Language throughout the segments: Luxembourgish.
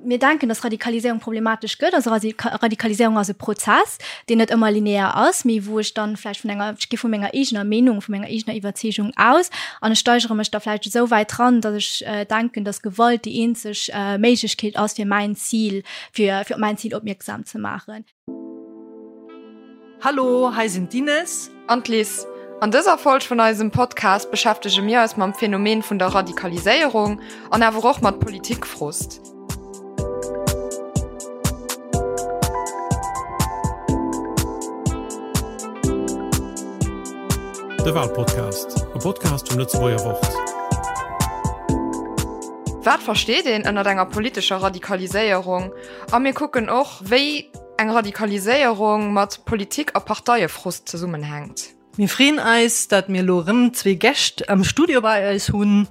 Mir denken, dass Radikaliséierung problematesch gëtt. Also Radikaliséierung ass e Prozess, deen net ëmmer linear ass, mee wou ech dann vläicht vun enger, ech gi vu menger eegener Meenung, vu menger eegener Iwwerzeegung aus an ech steigere mech da vläicht esou wäit dran, dass ech denken, dass Gewalt déi eenzeg Méiglechkeet ass, fir mäin Zil, fir fir op mäin Zil opmierksam ze maachen. Hallo, hei sinn d'Ines. An d'Liz. An dëser Folg vun eisem Podcast beschäftege mir eis mam Phänomen vun der Radikaliséierung an awer och mat Politikfrust. De Walpodcast, e Podcast vum Lëtzebuerger Wort. Wat versteet een ënnert enger politescher Radikaliséierung? A mir kucken och, wéi eng Radikaliséierung mat Politik a Parteiefrust zesummenhänkt. Mir freeën eis, dat mir elo erëm zwee Gäscht am Studio bei eis hunn.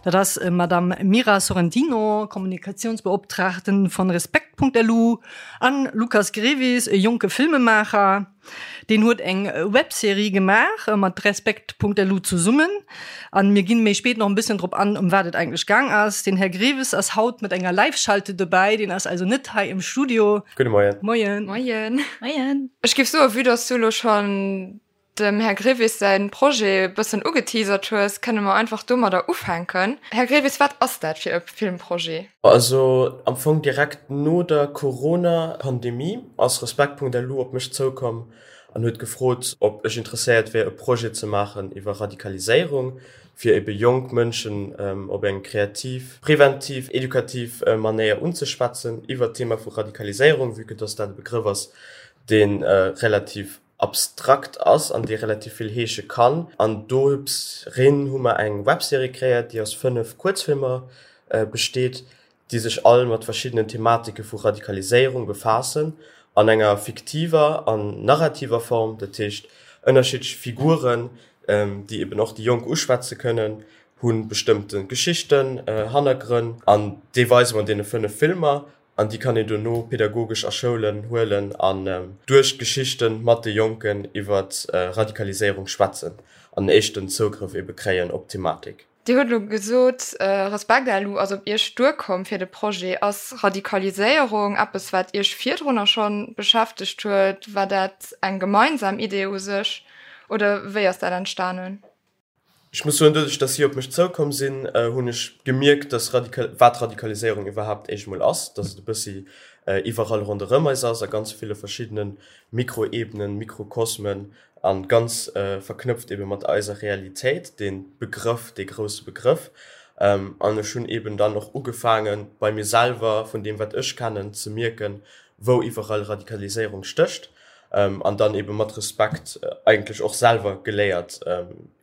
Dat ass Madame Mira Sorrentino, Kommunikationsbeoptragten von Respekt.lu an Lucas Grevis, e jonke Filmemaacher. Deen huet eng Webserie gemaach mat Respekt.lu zesummen an mir ginn méi spéit nach en bësschen drop an, ëm wat et eigentlech gaang ass. Den Här Greves ass haut mat enger Live-Schalte dobäi, deen ass also net hei im Studio. Gudde Moien. Moien. Moien. Moien. Ech géif soen, vue dass du elo schonn dem Här Grevis säin Projet e bëssen ugeteasert hues, kënne mer einfach domadder ufänken. Här Grevis, wat ass dat fir e Filmprojet? Also am Fong direkt no der Corona-Pandemie ass Respekt.lu op mech zoukomm an huet gefrot, ob ech interesséiert wier e Projet ze maachen iwwer Radikaliséierung, fir ebe jonk Mënschen op eng kreativ, preventiv, edukativ Manéier unzeschwätzen iwwer d'Thema vu Radikaliséierung, vue que dass dat e Begrëff ass, dee relativ abstrakt ass an dee relativ vill heesche kann. An dorin hu mer eng Webserie kreéiert, déi aus 5 Kuerzfilmer besteet, déi sech all mat verschiddenen Thematike vu Radikaliséierung befaassen, an enger fiktiver an narrativer Form, dat heescht ënnerschiddlech Figuren, déi eben och déi Jonk uschwätze kënnen, hu bestëmmte Geschichten, Hannergrënn, an déi weise mer an deene 5 Filmer. An déi kann een dono pedagogesch a Schoulen huelen an duerch d'Geschichte mat de Jonken iwwer Radikaliséierung schwätzen an en éischten Zougrëff ebe kréien op d'Thematik. Dir hutt elo gesot, Respekt-LU ass op Iech duerkomm fir de Projet. Ass Radikaliséierung eppes, wat Iech virdrunner scho beschäftegt huet? War dat eng gemeinsam Idee u sech oder wéi ass dat entstanen? Ech muss soen, doduerch dass si op mech zoukomm sinn, hunn ech gemierkt, dass wat Radikaliséierung iwwerhaapt éischt emol ass, dass et e bëssi iwwerall ronderëm eis ass, a ganz ville verschiddene Mikroebenen, Mikrokosmen a ganz verknëpft ebe mat eiser Realitéit, dee Begrëff, dee grousse Begrëff. An ech hunn eben dann och ugefaangen, bei mir selwer, vun deem wat ech kennen, ze mierken, wou iwwerall Radikaliséierung stécht. An dann ebe mat Respekt eigentlech och selwer geléiert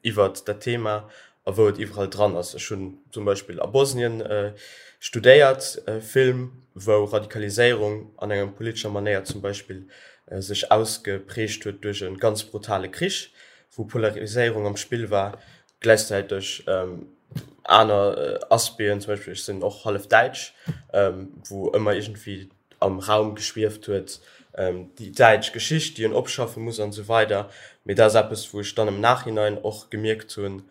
iwwert dat Thema a wou et iwwerall dran ass. Ech hunn zum Beispill a Bosnien studéiert, Film, wou Radikaliséierung an enger politescher Manéier zum Beispill sech ausgeprägt huet duerch e ganz brutale Krich, wou Polariséierung am Spill war, gläichzäiteg aner Aspecten, zum Beispill ech sinn och hallef däitsch, wou ëmmer iergendwéi am Raum geschwieft huet, déi däitsch Geschicht, déi een opschaffe muss an esou weider. Mee dat ass eppes, wou ech dann am Nachhinein och gemierkt hunn,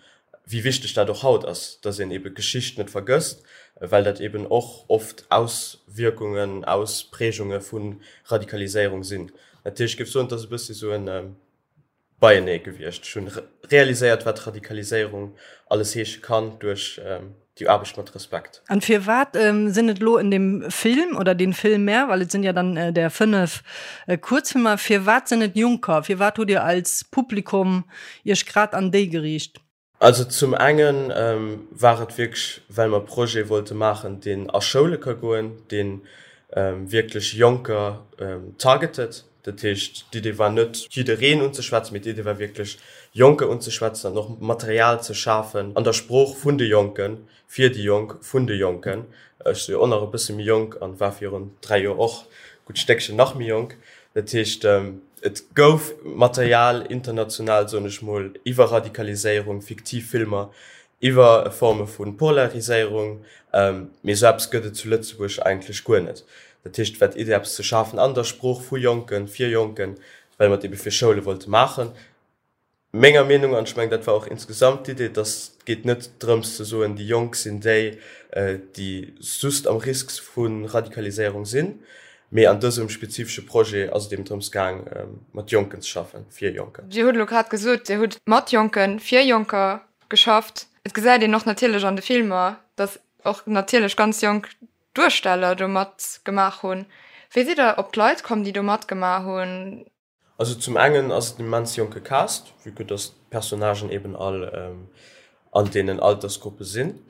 wéi wichteg dat och haut ass, dass een ebe Geschicht net vergësst, well dat eben och oft Auswierkungen, Ausprägunge vu Radikaliséierung sinn. Natierlech, ech géif soen, et ass e bëssi esou en beienee gewiescht. Ech hunn realiséiert, wat Radikaliséierung alles heesche kann duerch déi Aarbecht mat Respekt. An firwat sinn et elo en dem Film oder den Filmer, well et sinn ja dann der 5 Kuerzfilmer, firwat sinn et Jonker? Firwat hutt Dir als Publikum Iech grad an déi geriicht? Also zum enge war et wierklech, well mer e Projet wollte maachen, deen a Schoule ka goen, dee wierklech Jonker targetet. Dat heescht, d'Idee war net, jiddereen unzeschwätzen, mee d'Idee war wierklech, Jonker unzeschwätzen an och Material ze schafen an der Sprooch vun de Jonken, fir déi Jonk, vun de Jonken. Ech si jo och nach e bësse méi jonk an war virun 3 Joer och e gutt Stéckchen nach méi jonk. Dat heescht, et gouf Material international, soen ech mol, iwwer Radikaliséierung, fiktiv Filmer iwwer Forme vu Polariséierung, mee esou eppes gëtt et zu Lëtzebuerg eigentlech guer net. Dat heescht, et war d'Idee, eppes ze schafen an der Sprooch vu Jonken, fir Jonken, well mer et ebe fir Schoule wollte maachen. Menger Meenung, an ech mengen, dat war och insgesamt d'Idee, dass et geet net drëms ze soen, déi Jonk sinn déi, déi just am Risk vu Radikaliséierung sinn, mee an dësem spezifesche Projet ass et eben drëms gaang, mat Jonken ze schaffen, fir Jonker. Dir hutt elo grad gesot, Dir hutt mat Jonken, fir Jonker geschafft. Et gesäit een och natierlech an de Filmer, dass och natierlech ganz jonk Duersteller do matgemaach hunn. Wéi sidd Der op d'Leit komm, déi do matgemaach hunn? Also zum engen ass et en immens jonke Cast, vue que dass d'Personnagen eben all an deenen Altersgruppe sinn.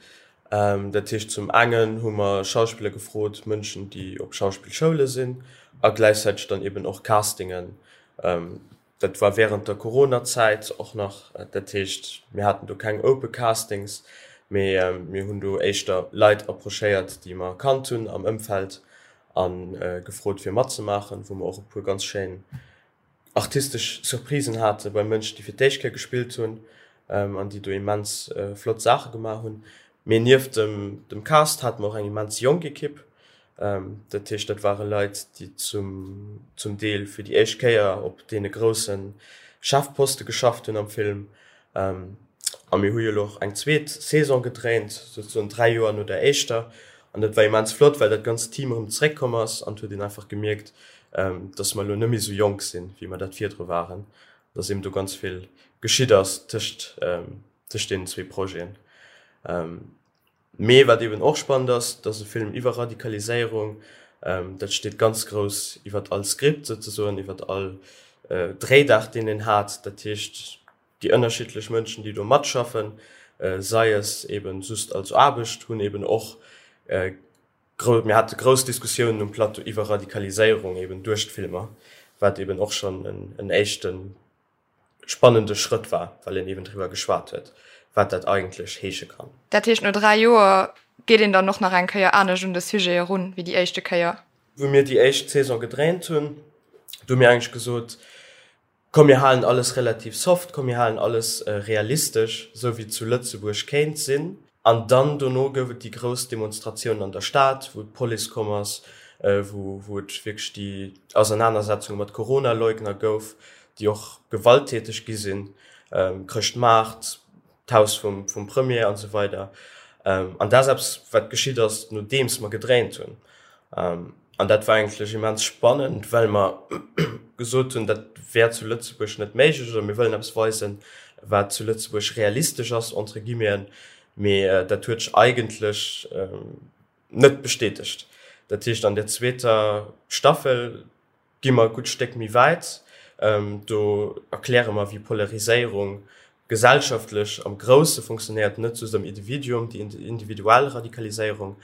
Dat heescht zum engen hu mer Schauspiller gefrot, Mënschen déi op Schauspillschoule sinn a gläichzäiteg dann eben och Castingen. Dat war während der Coronazäit och nach, dat heescht mir haten do keng Open Castings, mee mir hunn do éischter Leit approchéiert déi mer kannt hunn am Ëmfeld a gefrot fir matzemaachen, wou mer och e puer ganz schéin artistesch Surprisen hate bei Mënschen, déi fir d'éischt Kéier gespillt hunn an déi do immens flott Saache gemaach hunn. Mee nieft dem dem Cast hate mer och eng immens jonk Ekipp. Dat heescht, dat ware Leit, déi zum zum Deel fir déi éischt Kéier op deene grousse Chefposte geschafft hunn am Film. A mir hu jo elo och eng zweet Saison gedréint, souzesoen 3 Joer no der éischter. An dat war immens flott, well dat ganzt Team erëm zeréckkomm ass an et huet een einfach gemierkt, dass mer elo net méi esou jonk sinn, wéi mer dat virdru waren, dass eben do ganz vill geschitt ass tëscht tëscht deenen zwee Projeten. Mee wat eben och spannend ass, dat ass e Film iwwer Radikaliséierung, dat steet ganz grouss iwwer all Skript souzesoen, iwwer all Dréidag, deen een hat. Dat heescht, Déi ënnerschiddlech Mënschen, déi do matschaffen, sei es eben just als Aarbecht, hunn eben och grou, mir hate grouss Diskussiounen um Plateau iwwer Radikaliséierung eben duerch d'Filmer, wat eben och schonn en éischte spannende Schrëtt war, well een eben driwwer geschwat huet, wat dat eigentlech heesche kann. Dat heescht, no 3 Joer geet een dann och nach eng Kéier anescht un de Sujet erun wéi déi éischte Kéier? Wou mir déi éischt Saison gedréint hunn, do hu mir eigentlech gesot, Komm mir halen alles relativ soft, komm mir halen alles realistesch, esou wéi et zu Lëtzebuerg kéint sinn. An dann dono gouf et déi grouss Demonstratiounen an der Stad, wou d'Police komm ass, wou wou et wierklech déi Ausernanersetzunge mat Corona-Leugner gouf, déi och gewalttäteg gi sinn, Chrëschtmaart, d'Haus vum vum Premier an esou weider. An dat ass eppes, wat geschitt ass, nodeems mer gedréint hunn. An dat war eigentlech immens spannend, well mer gesot hunn, dat wär zu Lëtzebuerg net méiglech oder mir wëllen eppes weisen, wat zu Lëtzebuerg realistesch ass, entre guillemeten. Mee dat huet sech eigentlech net bestätegt. Dat heescht, an der zweeter Staffel gi mer e gutt Stéck méi wäit. Do erkläre mer, wéi Polariséierung gesellschaftlech am Grousse funktionéiert, net just am Individuum, déi individuell Radikaliséierung.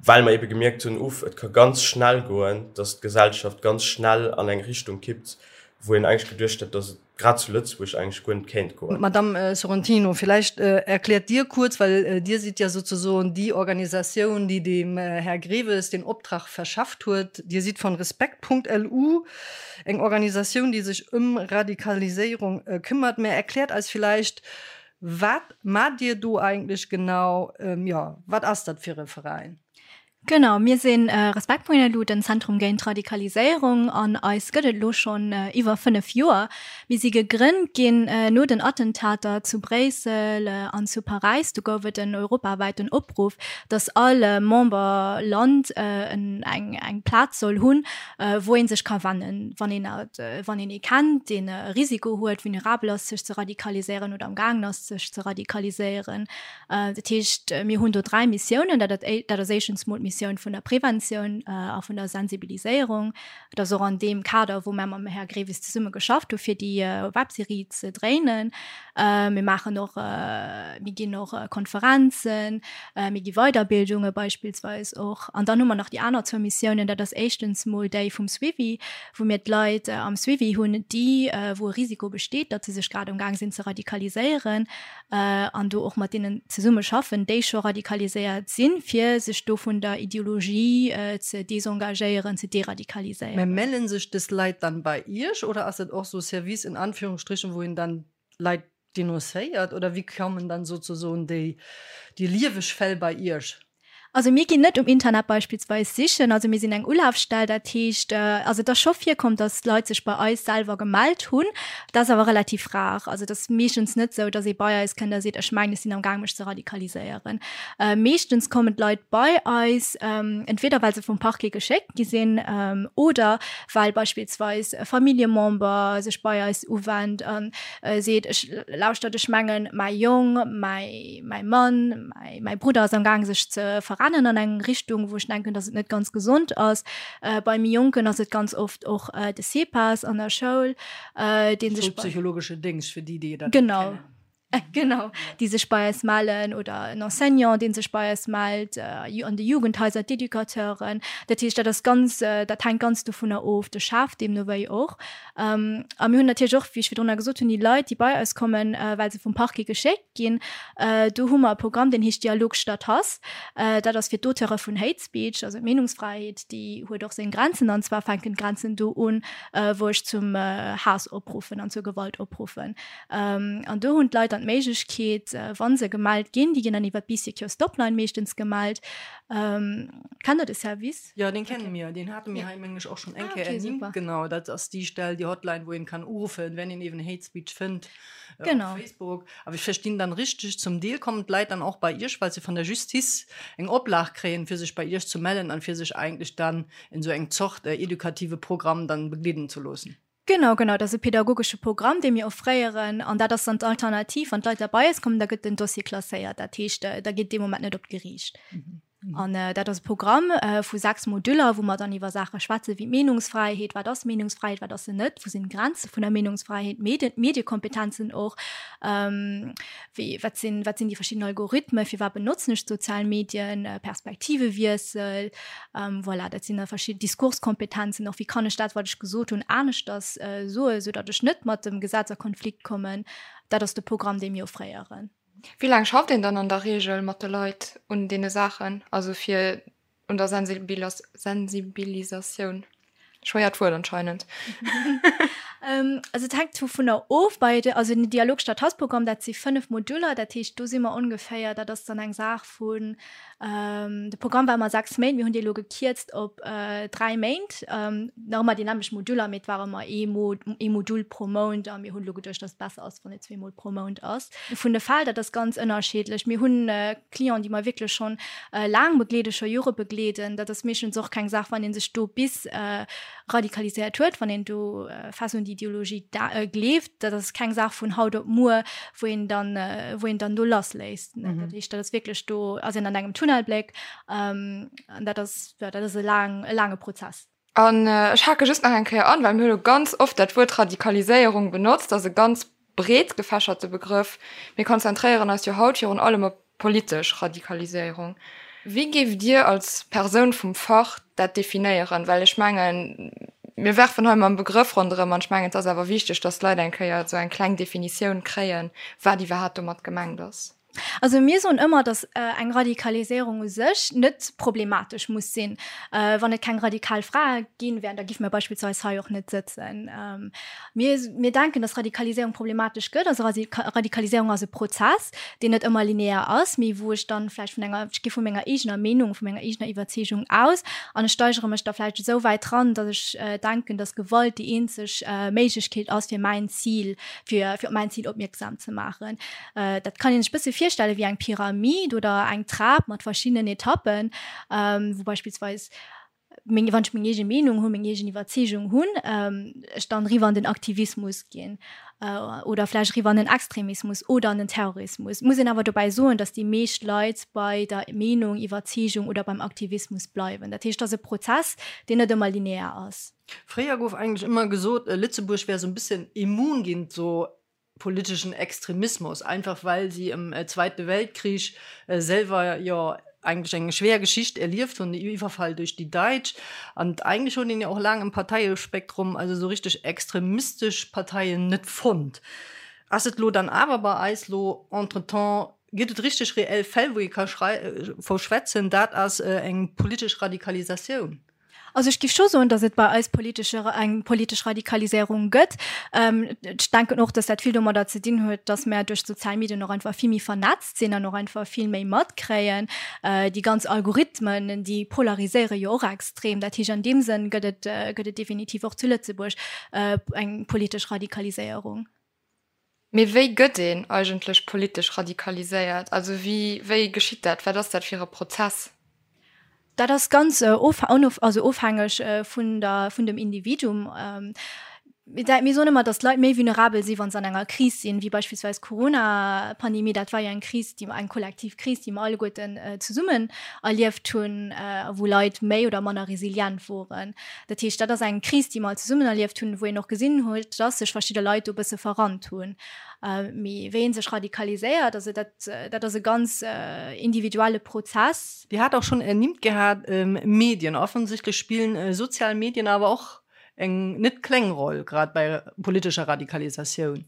Well mer ebe gemierkt hunn, uff, et ka ganz schnell goen, datt d'Gesellschaft ganz schnell an eng Richtung kippt, wou een eigentlech geduecht hätt, datt et grad zu Lëtzebuerg eigentlech guer net kéint goen. Madamm Sorrentino, villäicht erkläert Dir kuerz, well Dir sidd ja sozesoen déi Organisatioun, déi dem Här Greves den Optrag verschafft huet. Dir sidd von Respekt.lu, eng Organisatioun, déi sech ëm Radikaliséierung këmmert. Mä erkläert eis villäicht, Wat maacht Dir do eigentlech genau? Jo, wat ass dat fir e Veräin? Genau, mir si Respektpunkt.lu, den Zentrum géint Radikaliséierung an eis gëtt et elo schonn iwwer 5 Joer. Mir si gegrënnt ginn no den Attentater zu Bréissel an zu Paräis. Do gouf et en europawäiten Opruff, datt all Memberland eng Plaz soll hunn, wou ee sech ka wennen, wann een wann een ee kennt, deen e Risiko huet, vulnerabel ass, sech ze radikaliséieren oder am gaangen ass, sech ze radikaliséieren. Dat heescht, mir hunn do 3 Missiounen. Dat dat ass éischtens mol d'Missioun vun der Preventioun a vun der Sensibiliséierung. Dat ass och an deem Kader, wou mär mam Här Grevis zesumme geschafft hu fir déi Webserie ze dréinen. Mir maachen och, mir ginn och Konferenzen, mir gi Weiderbildunge beispillsweis och. An dann hu mer nach déi aner zwou Missiounen, dat ass éischtens mol déi vum Suivi, wou mir d'Leit am Suivi hunn, déi, wou e Risiko besteet, datt se sech grad amgaang sinn ze radikaliséieren, an do och mat deenen zesumme schaffen, déi scho radikaliséiert sinn, fir sech do vun der Ideologie ze desengagéieren, ze deradikaliséieren. Mä mellen sech dës Leit dann bei Iech oder ass dat och sou Service in Anführungsstrichen, wou een dann Leit denoncéiert oder wéi kommen dann sozesoen déi déi lieweg Fäll bei Iech? Also mir ginn net um Internet beispillsweis sichen. Also mir sinn eng Ulafstell, dat heescht, also et ass scho virkomm, datt Leit sech bei eis selwer gemellt hunn. Dat ass awer relativ rar. Also et ass meeschtens net esou, datt ee bei eis kënnt a seet, ech mengen, ech sinn am Gaang mech ze radikaliséieren. Meeschtens kommen d'Leit bei eis, entweder well se vum Parquet geschéckt gi sinn oder well beispillsweis e Familljemember sech bei eis uwennt a seet, ech lauschtert, ech mengen, mäi Jong, mäi Mann, Mäi Brudder ass am Gaang sech ze verrennen an eng Richtung, wou ech denken, datt et net ganz gesond ass. Bei méi Jonken ass et ganz oft och de CEPAS an der Schoul, dee sech. Schoulpsychologesche Déngscht, fir déi, déi dat net kennen. Genau, déi sech bei eis mellen oder en Enseignant, dee sech bei eis mellt, an de Jugendhaiser d'Educateuren. Dat heescht, dat ass ganz, dat hänkt ganz dovunner of, de Chef deemno wéi och. A mir hunn natierlech och, wéi ech virdrunner gesot hunn, déi Leit, déi bei eis kommen, well se vum Parquet geschéckt ginn. Do hu mer e Programm, deen heescht Dialog statt Hass. Dat ass fir d'Auteure vun Hate Speech, also d'Meenungsfräiheet, déi huet och seng Grenzen. An zwar fänken d'Grenzen do un, wou ech zum Haass opruffen an zur Gewalt opruffen. An do hunn d'Leit dann d'Méiglechkeet, wa se gemellt ginn, déi ginn dann iwwer d'Bee Secure Stopline meeschtens gemellt. Kennt Der de Service? Jo, deen kenne mir. Deen hate mir hei, mengen ech, och schonn eng Kéier ernimmt. Genau, dat ass déi Stell, déi Hotline, wou een kann uruffen, wenn een eeben Hate Speech fënnt. Genau. Op Facebook. Awer ech verstinn dann richteg, zum Deel kommen d'Leit dann och bei Iech, well se vun der Justiz eng Oplag kréien, fir sech bei Iech ze mellen an fir sech eigentlech dann en esou eng Zort edukative Programm dann begleeden ze loossen. Genau, genau. Dat ass e pedagogesche Programm, dee mir offréieren. An dat ass dann d'Alternativ. Wann d'Leit da bei eis kommen, da gëtt den Dossier klasséiert. Dat heescht, da geet dee Moment net op d'Geriicht. An dat ass e Programm vu 6 Moduller, wou mer dann iwwer Saache schwätze wéi d'Meenungsfräiheet, wat ass Meenungsfräiheet, wat ass se net, wou sinn d'Grenze vun der Meenungsfräiheet, Medien, Mediekompetenzen och, wéi, wat sinn, wat sinn déi verschidden Algorithmen, firwat benotzen ech d'sozial Medien, Perspektivewiessel, voilà, dat sinn da verschidden Diskurskompetenzen och, wéi kann ech dat, wat ech gesot hunn, aneschters soen, soudatt ech net mat dem Gesetz a Konflikt kommen. Dat ass de Programm, dee mir offréieren. Wéi laang schafft een dann an der Reegel mat de Leit un deene Saachen, also fir un der Sensibilisatioun? Schwéiert Wuert anscheinend. Also et hänkt dovunner of, bei de, also den Dialog statt Hass-Programm, dat si 5 Moduler, dat heescht do si mer ongeféier, dat ass dann eng Saach vun, de Programm war ëmmer 6 Méint, mir hunn dee elo gekierzt op 3 Méint, nach ëmmer déi nämmlecht Moduler, mee et war ëmmer ee ee Modul pro Mount a mir hunn elo geduecht, datt et besser ass, wann et zweemol pro Mount ass. Vun de Fäll, dat ass ganz ënnerschiddlech. Mir hunn Clienten, déi mer wierklech schonn laang begleeden, scho Jore begleeden. Dat ass meeschtens och keng Saach, wann ee sech do bis radikaliséiert huet, wann een do fest un déi Ideologie gleeft. Dat ass keng Saach vun haut op muer, wou een dann, wou een dann do lassléisst. Dat heescht, dat ass wierklech, do ass een an engem Tunnelbléck an dat ass, jo, dat ass e laang, e laange Prozess. An ech hake just nach eng Kéier an, well mir hu lo ganz oft dat Wuert Radikaliséierung benotzt. Dat ass e ganz breet gefächerte Begrëff. Mir konzentréieren eis jo haut virun allem op politesch Radikaliséierung. Wéi géift Dir als Persoun vum Fach dat definéieren? Well ech mengen, mir werfen hei mam Begrëff ronderëm an ech mengen, et ass awer wichteg, dass d'Leit eng Kéier esou eng kleng Definitioun kréien, wat iwwerhaapt domat gemengt ass. Also mir soen ëmmer, datt eng Radikaliséierung u sech net problematesch muss sinn. Wann et keng radikal Frae ginn wären, da géife mir beispillsweis hei och net sëtzen. Mir, mir denken, datt Radikaliséierung problematesch gëtt. Also Radikaliséierung ass e Prozess, deen net ëmmer linear ass, mee wou ech dann vläicht vun enger, ech gi vu menger eegener Meenung, vu menger eegener Iwwerzeegung aus an ech steigere mech da vläicht esou wäit dran, datt ech denken, datt Gewalt déi eenzeg Méiglechkeet ass, fir mäin Zil, fir, fir op mäin Zil opmierksam ze maachen. Dat kann een sech bësse virstelle wéi eng Pyramid oder eng Trap mat verschiddenen Etappen, wou beispillsweis meng, wann ech meng eege Meenung hunn, meng eegen Iwwerzeegung hunn, ech dann eriwwer an den Aktivismus ginn oder vläicht eriwwer an den Extremismus oder an den Terrorismus. Muss een awer dobäi soen, datt déi meescht Leit bei der Meenung, Iwwerzeegung oder beim Aktivismus bleiwen. Dat heescht, et ass e Prozess, deen net ëmmer linear ass. Fréier gouf eigentlech ëmmer gesot, Lëtzebuerg wär esou e bëssen immun géint esou politeschen Extremismus, einfach well si im Zweite Weltkrich selwer jo eigentlech eng schwer Geschicht erlieft hunn, de Iwwerfall duerch déi Daitsch. An eigentlech huet een jo och laang im Parteiespektrum also esou richteg extremistesch Parteien net fonnt. Ass et lo dann awer bei eis lo entretemps, gëtt et richteg reell Fäll, wou ee ka verschwätzen, dat ass eng politesch Radikalisatioun? Also ech géif scho soen, datt et bei eis politesche eng politesch Radikaliséierung gëtt. Ech denken och, datt dat vill domadder ze dinn huet, datt mär duerch d'sozial Medien och einfach vill méi vernetzt sinn an och einfach vill méi matkréien. Déi ganz Algorithmen, déi polariséiere jo och extrem. Dat heescht, an deem Sënn gëtt et gëtt et definitiv och zu Lëtzebuerg eng politesch Radikaliséierung. Mee wéi gëtt een eigentlech politesch radikaliséiert? Also wéi, wéi geschitt dat? Wat ass dat fir e Prozess? Dat ass ganz also ofhängeg vun der, vun dem Individuum. Mir soen ëmmer, datt d'Leit méi vulnerabel si wa se an enger Kris sinn, wéi beispillsweis d'Corona-Pandemie. Dat war jo eng Kris, déi mer, eng kollektiv Kris, déi mer alleguerten zesummen erlieft hunn, a wou Leit méi oder manner resilient woren. Dat heescht, dat ass eng Kris, déi mer all zesummen erlieft hunn, wou een och gesinn huet, dass sech verschidde Leit do e bësse verrannt hunn. Mee wéi ee sech radikaliséiert, also dat, dat ass e ganz individuelle Prozess. Dir hat och schonn ernimmt gehat, Medien. Offensichtlech spillen sozial Medien awer och eng net kleng Roll, grad bei politescher Radikalisatioun.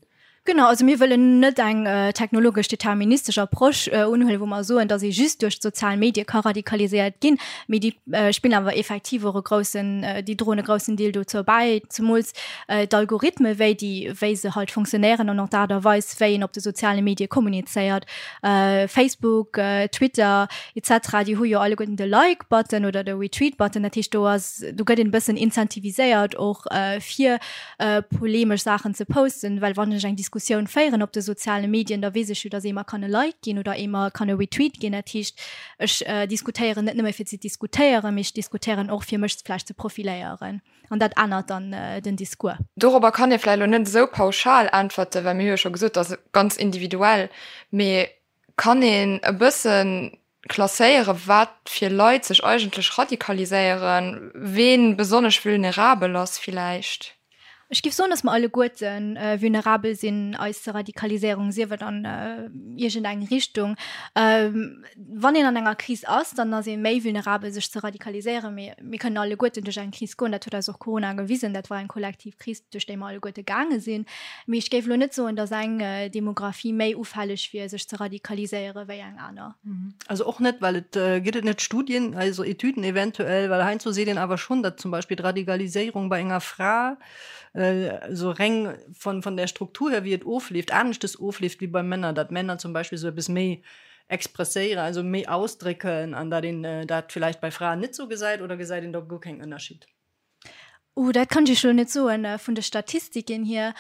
Genau, also mir wëllen net eng technologesch deterministesch Approche unhuelen, wou mer soen, datt ee just duerch d'sozial Medie ka radikaliséiert ginn, mee déi spillen awer effektiv och e groussen, déi droen e groussen Deel dozou bäi, zemools d'Algorithme wéi déi, wéi se halt funktionéieren an och d'Aart a Weis, wéi een op de soziale Medie kommunizéiert. Facebook, Twitter etc. Déi hu jo alleguerten de Like-Button oder de Retweet-Button, dat heescht do ass, do gëtt een e bëssen incentiviséiert och fir polemesch Saachen ze posten, well wann ech eng Diskussioun féieren op de soziale Medien, da weess ech jo, datt ee mer kann e Like ginn oder ee mer kann e Retweet ginn. Dat heescht, ech diskutéieren net nëmme fir ze diskutéieren, mee ech diskutéieren och fir mech vläicht ze profiléieren an dat ännert dann den Discours. Dorobber kann ee vläicht elo net esou pauschal äntwerten, well mir hu jo scho gesot, dat ass ganz individuell. Mee kann een e bëssen klasséieren, wat fir Leit sech eigentlech radikaliséieren, ween besonnesch vulnerabel ass villäicht? Ech géif soen, dass mer alleguerte vulnerabel sinn, eis ze radikaliséierung, sief et an iergend eng Richtung. Wann een an enger Kris ass, dann ass ee méi vulnerabel, sech ze radikaliséieren. Mee mir kënnen alleguerten duerch eng Kris goen, dat huet eis och Corona gewisen, dat war eng kollektiv Kris, duerch déi mer alleguerte gaange sinn. Mee ech géif elo net soen, datt eng Demografie méi ufälleg wier, sech ze radikaliséiere wéi eng aner. Also och net, well et gëtt et net Studien, also Etüden eventuell, well heiansdo seet een awer schonn, datt zum Beispill d'Radikaliséierung bei enger Fra esou reng von von der Struktur her, wéi et ofleeft, aneschtes ofleeft wéi bei Männer, datt Männer zum Beispill esou eppes méi expresséieren, also méi ausdrécken an datt een dat villäicht bei Fraen net esou gesäit, oder gesäit een do guer keng Ënnerschied? Uh, dat kann ech Iech elo net soen, vun de Statistiken hier.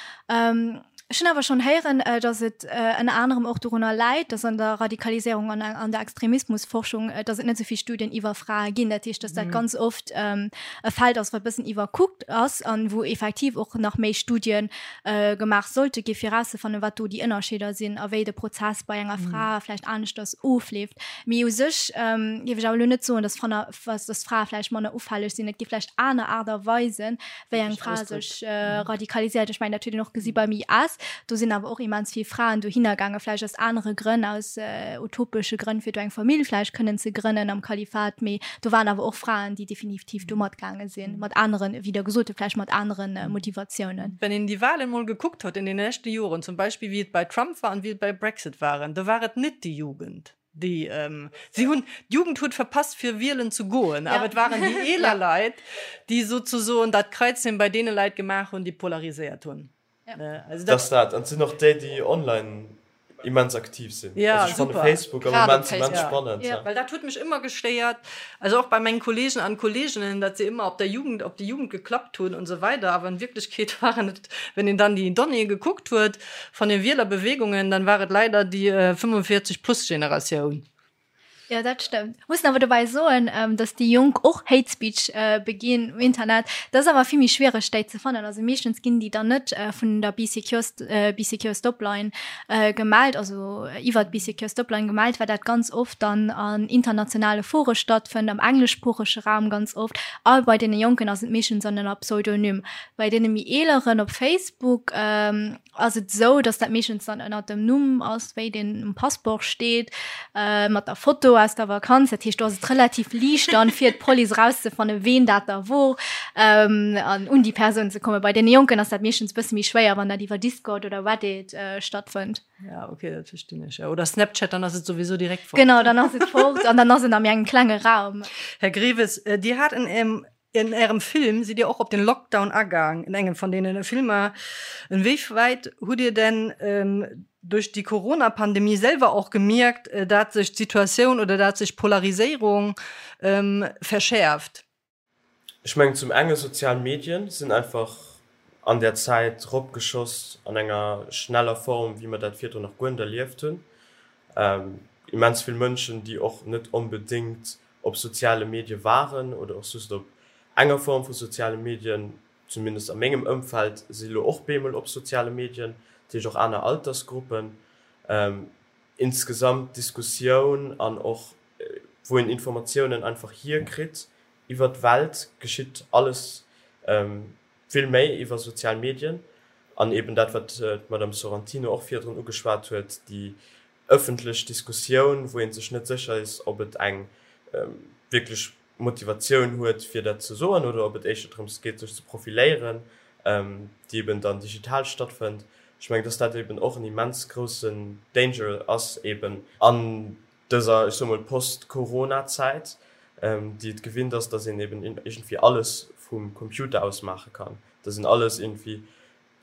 Ech hunn awer schonn héieren, datt et ënner anerem och dorunner läit, datt an der Radikaliséierung an an der Extremismusforschung, datt et net esou vill Studien iwwer Frae ginn. Dat heescht, datt dat ganz oft e Feld ass, wat e bëssen iwwerkuckt ass an wou effektiv och nach méi Studie gemaach sollte gi fir erauszefannen, wat do déi Ënnerscheeder sinn a wéi de Prozess bei enger Fra vläicht aneschters ofleeft. Mee u sech géif ech awer elo net soen, datt dass Frae vläicht manner ufälleg sinn. Et gi vläicht aner Aart a Weisen, wéi eng Fra sech radikaliséiert. Ech mengen, dat huet een och gesi beim IS. Do sinn awer och immens vill Fraen dohinner gaangen, vläicht aus anere Grënn, aus utopesche Grënn, fir do eng Famill vläicht kënnen ze grënnen am Kalifat. Mee do waren awer och Fraen, déi definitiv do matgaange sinn, mat aneren, wéi Der gesot hutt, vläicht mat anere Motivatiounen. Wenn een déi Wahlen mol gekuckt huet in den leschte Joren, zum Beispill wéi et bei Trump war an wéi et bei Brexit waren, do war et net déi Jugend. Déi, si hunn, d'Jugend huet verpasst fir wielen ze goen, awer et waren déi eeler Leit, déi souzesoen dat Kreizchen bei deene Leit gemaach hunn, déi polariséiert hunn. Also dat. Dass dat, an et sinn och déi, déi online immens aktiv sinn. Also ech fanne Facebook am Moment immens spannend. Well dat huet mech ëmmer gestéiert, also och bei mengen Kollegen an Kolleginnen, datt se ëmmer op der Jugend, op déi Jugend geklappt hunn und sou weider, awer in Wirklichkeet waren et, wenn een dann déi Donnéeë gekuckt huet, Von den Wielerbewegungen, dann war et leider déi 45 plus Generatioun. Jo, dat stëmmt. Mussen awer dobäi soen, dass déi Jonk och Hate Speech beginn um Internet. Dat ass awer vill méi schwiereg, déi ze fannen. Also meeschtens ginn déi dann net vun der Bee Secure, Bee Secure Stopline gemellt, also iwwert d'Bee Secure Stopline gemellt, well dat ganz oft dann an internationale Fore stattfënnt, am engleschsproochege Raum ganz oft. A bei deene Jonken ass et meeschtens an ënner Pseudonym. Bei deene méi eeleren op Facebook ass et esou, dass dat meeschtens dann ënnert dem Numm ass, wéi deen um Passeport steet, mat der Foto aus der Vakanz. Dat heescht, do ass et relativ liicht dann fir d'Police erauszefannen, ween dat da wor, an un déi Persoun ze kommen. Bei deene Jonken ass dat meeschtens e bësse méi schwéier, wann dat iwwer Discord oder Reddit stattfënnt. Ja, okay, dat verstinn ech. Oder Snapchat, dann ass et souwisou direkt fort. Genau, dann ass et fort an dann ass et a méi engem klenge Raum. Här Greves, Dir hat en. In Ärem Film sidd Dir och op den Lockdown agaang, in engem van deenen Filmer. Inwieweit hutt Dir denn duerch déi Corona-Pandemie selwer och gemierkt, dat sech d'Situatioun oder dat sech d'Polariséierung verschäerft? Ech mengen zum enge sozial Medien sinn einfach an där Zäit ropgeschoss an enger schneller Form, wéi mer dat virdrun nach guer net erlieft hunn. Immens vill Mënschen, déi och net onbedéngt op soziale Medie waren oder och just op enger Form vu soziale Medien, zumindest a mengem Ëmfeld, si lo och bemol op soziale Medien, dat heescht och aner Altersgruppen. Insgesamt d'Diskussioun an och wou een Informatiounen einfach hierkritt iwwer d'Welt, geschitt alles vill méi iwwer sozial Medien. An eben dat, wat d'Madame Sorrentino och virdrun ugeschwat huet, déi ëffentlech Diskussioun, wou ee sech net sécher is, ob et eng wierklech Motivatioun huet, fir dat ze soen, oder ob et éischter drëms geet, sech ze profiléieren, déi eben dann digital stattfënnt. Ech mengen, dass dat eben och en immens groussen Danger ass, eben an dëser, ech soe mol, Post-Corona-Zäit, déi et gewinnt ass, dass een eben iergendwéi alles vum Computer aus maache kann, dass een alles iergendwéi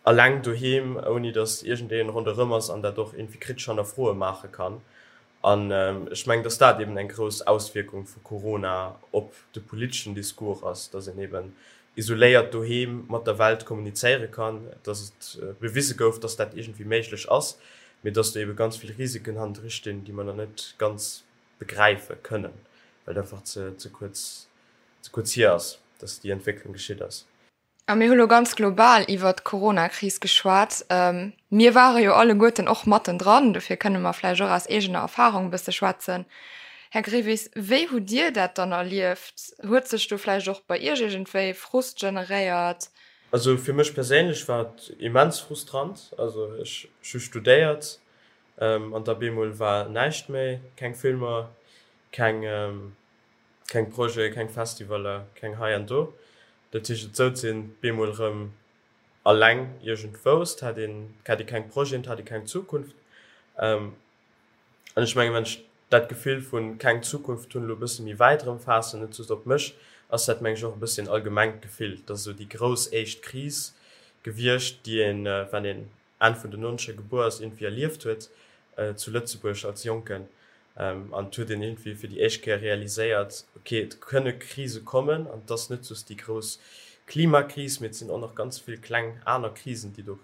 Alleng doheem, ouni datt iergendeen ronderëm ass an dat och iergendwéi kritesch hannerfroe maache kann. An ech mengen, datt dat eben eng grouss Auswierkung vu Corona op de politeschen Discours ass, datt een eben isoléiert doheem mat der Welt kommunizéiere kann, datt et bewise gouf, datt dat iergendwéi méiglech ass, mee datt do ebe ganz vill Risiken hannendru stinn, déi mer nach net ganz begräife kënnen, well et einfach ze kuerz, ze kuerz hier ass, datt déi Entwécklung geschitt ass. A mir hu lo ganz global iwwert d'Coronakris geschwat. Mir ware jo alleguerten och mattendran, dofir kënne mer vläicht och aus eegener Erfarung e bësse schwätzen. Här Grevis, wéi hutt Dir dat dann erlieft? Huet sech do vläicht och bei Iech iergendwéi Frust generéiert? Also fir mech perséinlech war et immens frustrant. Also ech hu studéiert an da bemol war näischt méi, keng Filmer, keng. Keng Projeten, keng Festivaler, keng hei an do. Dat heescht, et souz een bemol erëm alleng iergendwou. Et hat een, et hat ee keng Projeten, et hat ee keng Zukunft. An ech mengen, wann ech dat Gefill vu keng Zukunft hunn elo e bësse méi wäit erëm faassen, net just op mech, ass dat, meng ech, och e bëssi en allgemengt Gefill. Et ass esou déi grouss éischt Kris gewiescht, déi een, wann een Enn vun den Nonzeger gebuer ass, iergendwéi erlieft huet zu Lëtzebuerg als Jonken. An et huet een iergendwéi fir déi éischt Kéier realiséiert, ok, et kënne Krise kommen an et ass net just déi grouss Klimakris, mee et sinn och nach ganz vill kleng aner Krisen, déi do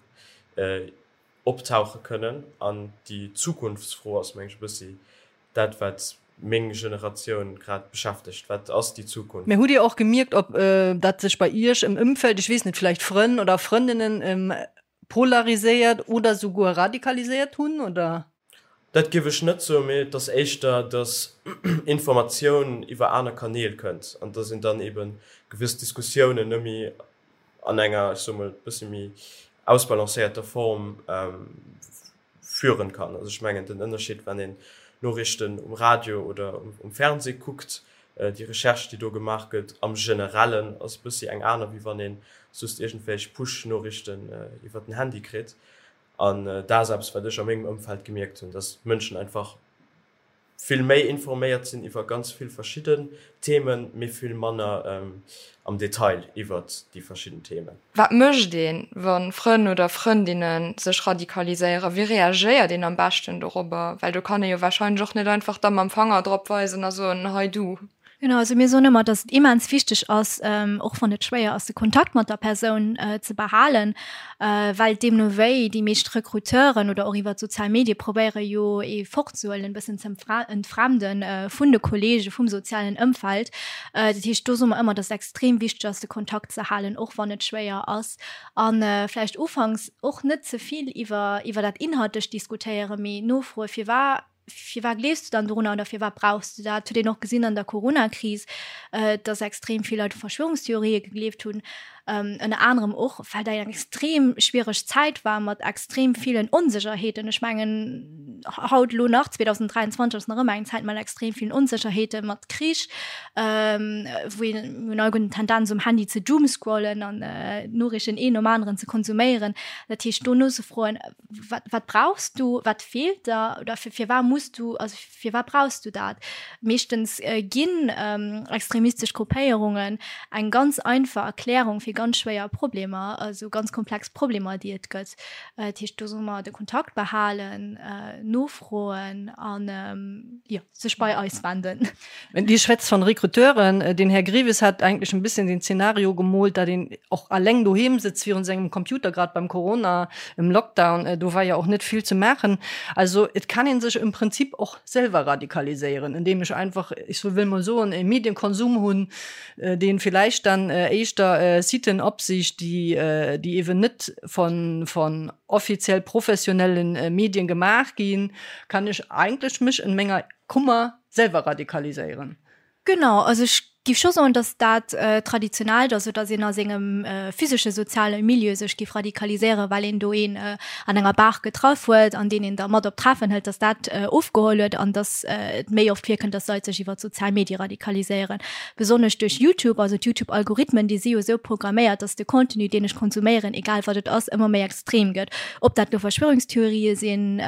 optauche kënnen. An déi Zukunftsfro ass, meng ech, e bëssi dat, wat meng Generatioun grad beschäftegt, Wat ass déi Zukunft? Mä hutt Dir och gemierkt, ob dat sech bei Iech im Ëmfeld, ech weess net, vläicht Frënn oder Frëndinnen, polariséiert oder souguer radikaliséiert hunn, oder? Dat géif ech net soen, mee et ass éischter, datt Informatioun iwwer aner Kanäl kënnt an datt een dann eebe gewëss Diskussiounen net méi an enger, ech soe mol, e bësse méi ausbalancéierter Form führen kann. Also ech mengen den Ënnerscheed, wann een Noriichten um Radio oder um Fernseh kuckt, déi Recherche, déi do gemaach gëtt am Generellen, ass e bëssi eng aner, wéi wann ee just iergendwelch Push-Noriichten iwwer den Handy kritt. An dat ass eppes, wat ech a mengem Ëmfeld gemierkt hunn, dass d'Mënschen einfach vill méi informéiert sinn iwwer ganz vill verschidden Themen, mee vill manner am Detail iwwert déi verschidden Themen. Wat mécht een, wa Frënn oder Frëndinne sech radikaliséieren? Wéi reagéiert een am beschten dorobber? Well do kann ee jo warscheinlech och net einfach da mam Fanger drop weisen a soen, hei du. Genau, also mir soen ëmmer, dass et immens wichteg ass, och wann et schwéier ass, de Kontakt mat der Persoun ze behalen, well deemno wéi déi meescht Recruteuren oder och iwwer d'sozial Medie probéiere jo ee fortzehuelen, e bëssen ze entfremden vun de Kollege, vum sozialen Ëmfeld. Dat heescht, do soe mer ëmmer, dass et extrem wichteg ass, de Kontakt ze halen, och wann et schwéier ass. A vläicht ufanks och net ze vill iwwer iwwer dat Inhaltlecht diskutéieren, mee nofroe firwat Firwat gleefs du dann dorunner oder firwat brauchs du dat? Huet een och gesinn an der Corona-Kris, dass extrem vill Leit u Verschwörungstheorië gegleeft hunn. Ënner anerem och, well dat eng extrem schwiereg Zäit war mat extrem villen Onsécherheeten. Ech mengen, haut elo nach, 2023, ass nach ëmmer eng Zäit mat extrem villen Onsécherheeten, mat Krich, wou een, mir hunn alleguerten d'Tendenz um Handy ze doomscrollen an d'Noriichten een nom aneren ze konsuméieren. Dat heescht, do nozefroen, wat, wat brauchs du, wat feelt der oder firwat muss du, also Firwat brauchs du dat? Meeschtens ginn extremistesch Gruppéierungen eng ganz einfach Erklärung fir ganz schwéier Problemer, also ganz komplex Problemer, déi et gëtt. Dat heescht, do solle mer de Kontakt behalen, nofroen an, jo, sech bei eis wenden. Dir schwätzt von Recruteuren. Den Här Greves hat eigentlech en bisschen den Szenario gemoolt, dat een och alleng doheem sëtzt virun sengem Computer, grad beim Corona, im Lockdown, do war jo och net vill ze maachen. Also et kann een sech im Prinzip och selwer radikaliséieren, indem ech einfach, ech wëll mol soen, e Medienkonsum hunn, deen villäicht dann éischter Siten opsicht, déi déi ewen net von von offiziell professionellen Medien gemaach ginn, kann ech eigentlech mech in menger Kummer selwer radikaliséieren. Genau, also ech géif scho soen, datt dat Traditionellt, also datt een a sengem physesche soziale Milieu sech géif radikaliséieren, well een do een an enger Bar getraff huet an deen een da mat op Treffen hëlt, datt dat ofgeholl huet an datt et méi oft virkënnt, datt Leit sech iwwer d'sozial Medie radikaliséieren. Besonnesch duerch YouTube, also d'Youtube-Algorithmen, déi si jo esou programméiert, datt de Contenu, deen ech konsuméieren, egal wat et ass, ëmmer méi extrem gëtt. Ob dat lo Verschwörungstheorië sinn,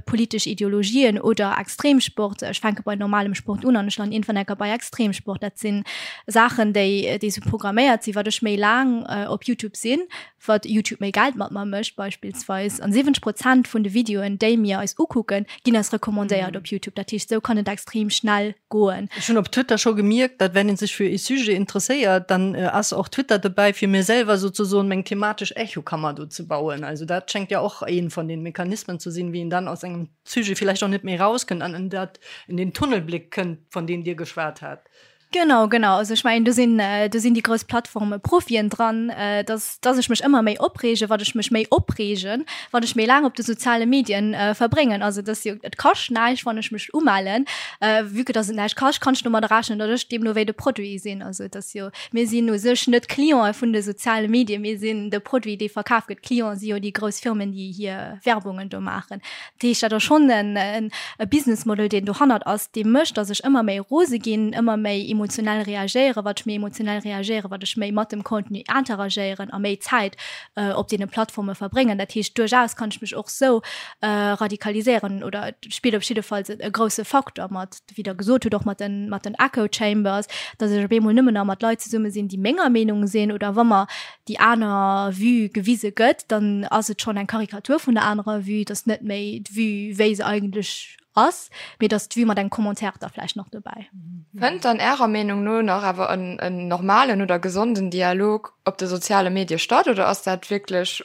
politesch Ideologien oder Extremsport. Ech fänke bei normalem Sport un an ech landen iergendwann enker bei Extremsport. Dat si Saachen, déi déi sou programméiert sinn. Wat ech méi laang op YouTube sinn, wat YouTube méi Geld mat mer mécht beispillsweis. An 70 Prozent vun de Videoen, déi mir eis ukucken, ginn eis recommandéiert op YouTube. Dat heescht, sou kann et extrem schnell goen. Ech hunn op Twitter scho gemierkt, datt wenn een sech fir ee Sujet interesséiert, dann ass och Twitter dobäi fir mir selwer souzesoen meng thematesch Echokammer do ze bauen. Also dat schengt ja och een von den Mechanismen ze sinn, wéi een dann aus engem Sujet villäicht och net méi rauskënnt an en dat in den Tunnelblick kënnt, von deem Dir geschwat hat. Genau, genau. Also ech mengen, do sinn, do sinn déi grouss Plattforme Profien dran, dass, dass ech mech ëmmer méi opreegen, wat ech mech méi opreegen, wann ech méi laang op de soziale Medien verbréngen. Also et ass jo, et kascht näischt, wann ech mech umellen. Vue que dass et näischt kascht, kann ech domadder rechnen, datt ech deemno wéi de Produit sinn. Also et ass jo, mir sinn u sech net Clientë vun de soziale Medien, mir sinn de Produit, dee verkaf gëtt. D'Clienten si jo déi grouss Firmen, déi hir Werbungen do maachen. Dat heescht, dat ass schonn en e Business Model, deen dohannert ass, dee mécht, datt ech ëmmer méi rose ginn, ëmmer méi emotionell reagéieren. Wat ech méi emotionell reagéieren, wat ech méi mat dem Contenu interagéieren a méi Zäit op deene Plattforme verbréngen. Dat heescht, duerchaus kann ech mech och sou radikaliséieren oder et spillt op jiddefalls e grousse Faktor mat, wéi Der gesot hutt, och mat den, mat den Echo Chambers, datt ech op eemol nëmmen nach mat Leit zesumme sinn, déi menger Meenung sinn oder wa mer déi aner Vue gewise gëtt, dann ass et schonn eng Karikatur vun der anerer Vue, et ass net méi d'Vue, wéi se eigentlech ass, mee et ass d'Vue mat engem Commentaire da vläicht nach dobäi. Fënnt dann Ärer Meenung no nach awer en normalen oder gesonden Dialog op de soziale Medie statt oder ass dat wierklech,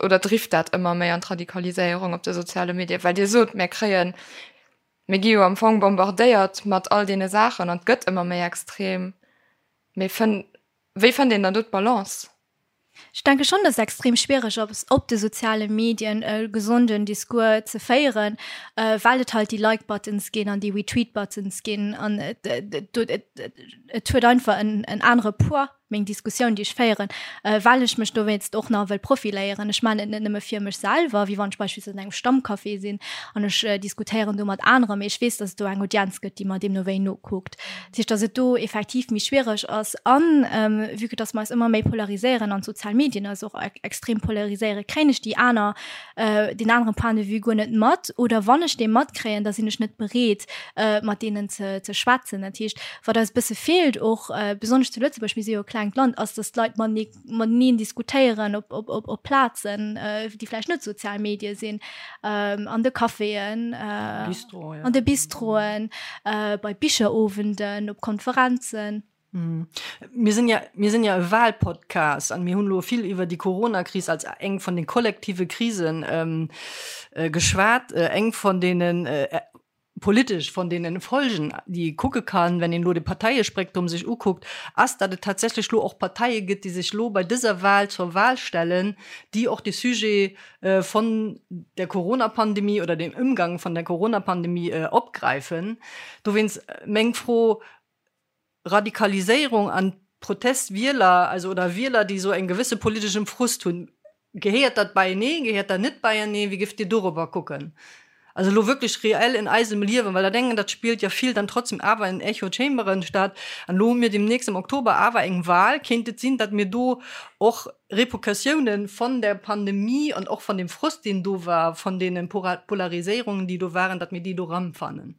oder drift dat ëmmer méi an d'Radikaliséierung op de soziale Medien? Well Dir sot, mir kréien, mir gi jo am Fong bombardéiert mat all deene Saachen an et gëtt ëmmer méi extrem, mee fënn, Wéi fënnt een dann do d'Balance? Ech denke schonn, dass et extrem schwiereg ass, op de soziale Medien e gesonden Discours ze féieren, well et halt déi Like-Buttons ginn an déi Retweet-Buttons ginn an et et huet einfach en en anere Poids, meng Diskussioun, déi ech féieren, well ech mech dowéinst och nach wëll profiléieren. Ech maachen et net nëmme fir mech selwer, wéi wann ech beispillsweis an engem Stammcafé sinn an ech diskutéieren do mat aneren, mee ech weess, dass et do eng Audienz gëtt, déi mer deemno wéi nokuckt. Dat heescht, dass et do effektiv méi schwiereg ass. An vue que dass mer eis ëmmer méi polariséieren an d'sozial Medien eis och extrem polariséieren, kréien ech déi aner, deen anere Point de vue guer net mat. Oder wann ech dee matkréien, da sinn ech net bereet, mat deenen ze ze schwätzen. Dat heescht, wat eis e bësse feelt och, besonnesch zu Lëtzebuerg, mir si jo e klengt Land, ass, dass d'Leit matenee mateneen diskutéieren op, op, op, op Plazen, äh, déi vläicht net sozial Medie sinn, ähm, an de Caféen, äh, Bistro, ja. an de Bistroen, äh, bei Bicherowenden, op Konferenzen. Mhm. Mir sinn ja, mir sinn ja e Wahlpodcast an mir hunn lo vill iwwer déi Corona-Kris als eng vun den kollektive Krisen ähm, äh, geschwat, äh, eng von deenen äh, politesch von deenen Folgen, déi ee kucke kann, wenn een elo de Parteiespektrum sech ukuckt, ass, datt et tatsächlech elo och Parteie gëtt, déi sech elo bei dëser Wahl zur Wahl stellen, déi och de Sujet von der Corona-Pandemie oder dem Ëmgang von der Corona-Pandemie opgräifen. Dowéinst meng Fro, Radikaliséierung an. Protestwieler, also oder Wieler, déi esou eng gewësse politeschem Frust hunn. Gehéiert dat beienee, gehéiert dat net beienee? Wéi géift Dir dorobber kucken? Also elo wierklech reell in eisem Liewen, well der denken, dat spillt jo vill dann trotzdem awer in Echo Chamberen statt. An elo hu mir demnächst am Oktober awer eng Wahl. Kéint et sinn, datt mir do och Repercussiounen von der Pandemie an och von dem Frust, deen do war, von deenen Polariséierungen, déi do waren, datt mir déi do erëmfannen?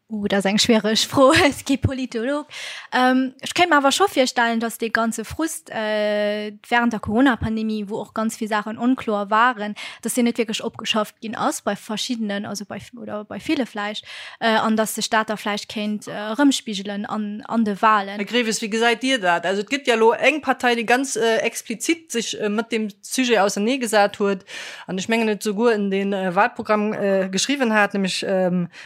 Uh, dat ass eng schwiereg Fro, ech si kee Politolog. Ech kéint mer awer scho virstellen, datt dee ganze Frust wärend der Corona-Pandemie, wou och ganz vill Saachen onkloer waren, datt deen net wierklech opgeschafft ginn ass bei verschiddenen, also bei oder bei ville vläicht, an datt sech dat da vläicht kéint erëmspigelen an an de Walen. Här Greves, wéi gesäit Dir dat? Also et gëtt jo elo eng Partei, déi ganz explizit sech mat deem Sujet auserneegesat huet an ech mengen et souguer en de Wahlprogramm geschriwwen hat, nämlech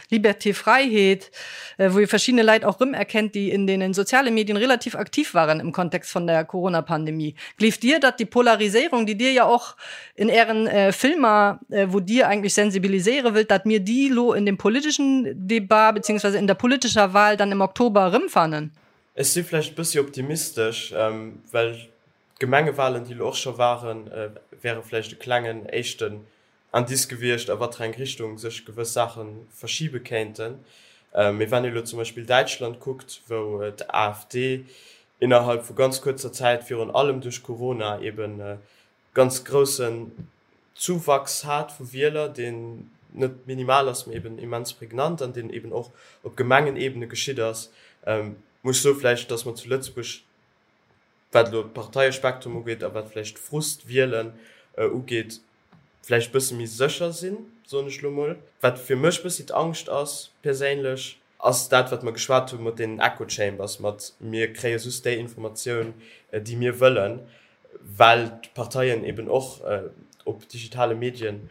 Liberté, Freiheet, wou ee verschiddene Leit och rëmerkennt, déi in deenen soziale Medien relativ aktiv waren im Kontext von der Corona-Pandemie. Gleeft Dir, datt déi Polariséierung, déi Dir ja och in Ären Filmer, wou Dir eigentlech sensibiliséiere wëllt, datt mir déi lo in dem politischen Debat beziehungsweise in der politischer Wahl dann im Oktober erëmfannen? Ech si vläicht e bëssi optimistesch, well d'Gemengewahlen, déi lo och scho waren, wäre vläicht e klengen éischten Indice gewiescht, a wat fir eng Richtung sech gewëss Saache verschibe kéinten. Mee wann ee elo zum Beispill Däitschland kuckt, wou d'AfD innerhalb vu ganz kuerzer Zäit, virun allem duerch Corona, eben ganz groussen Zuwachs hat vu Wieler, deen net minimal ass, mee eben immens prägnant an deen eben och op Gemengenebene geschitt ass, muss ech soe vläicht, datt mer zu Lëtzebuerg, wat elo d'Parteiespektrum ugeet a wat vläicht d'Frustwielen ugeet, vläicht bësse méi sécher sinn, soen ech elo mol. Wat fir mech bëssi d'Angscht ass perséinlech, ass dat, wat mer geschwat hu mat deenen Echo Chambers, mat mir kréie just déi Informatioun, déi mir wëllen, well d'Parteien eben och op digitale Medien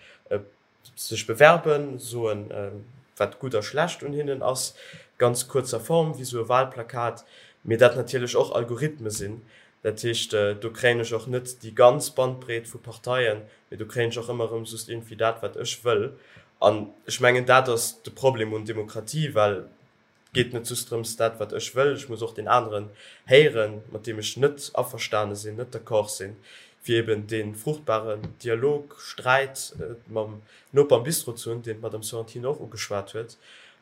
sech bewerben, soen, wat gutt a schlecht un hinnen ass, ganz kuerzer Form, wéi esou e Wahlplakat, mee dat natierlech och Algorithme sinn. Dat heescht, do kréien ech och net déi ganz Bandbreet vu Parteien, mee do kréien ech och ëmmer erëm just iergendwéi dat, wat ech wëll. An ech mengen, dat ass de Problem un Demokratie, well et geet net just drëms, dat, wat ech wëll, ech muss och deen aneren héieren, mat deem ech net averstane sinn, net d'accord sinn, fir eben dee fruchtbaren Dialog, Sträit mam Noper am Bistro ze hunn, deen d'Madame Sorrentino och ugeschwat huet.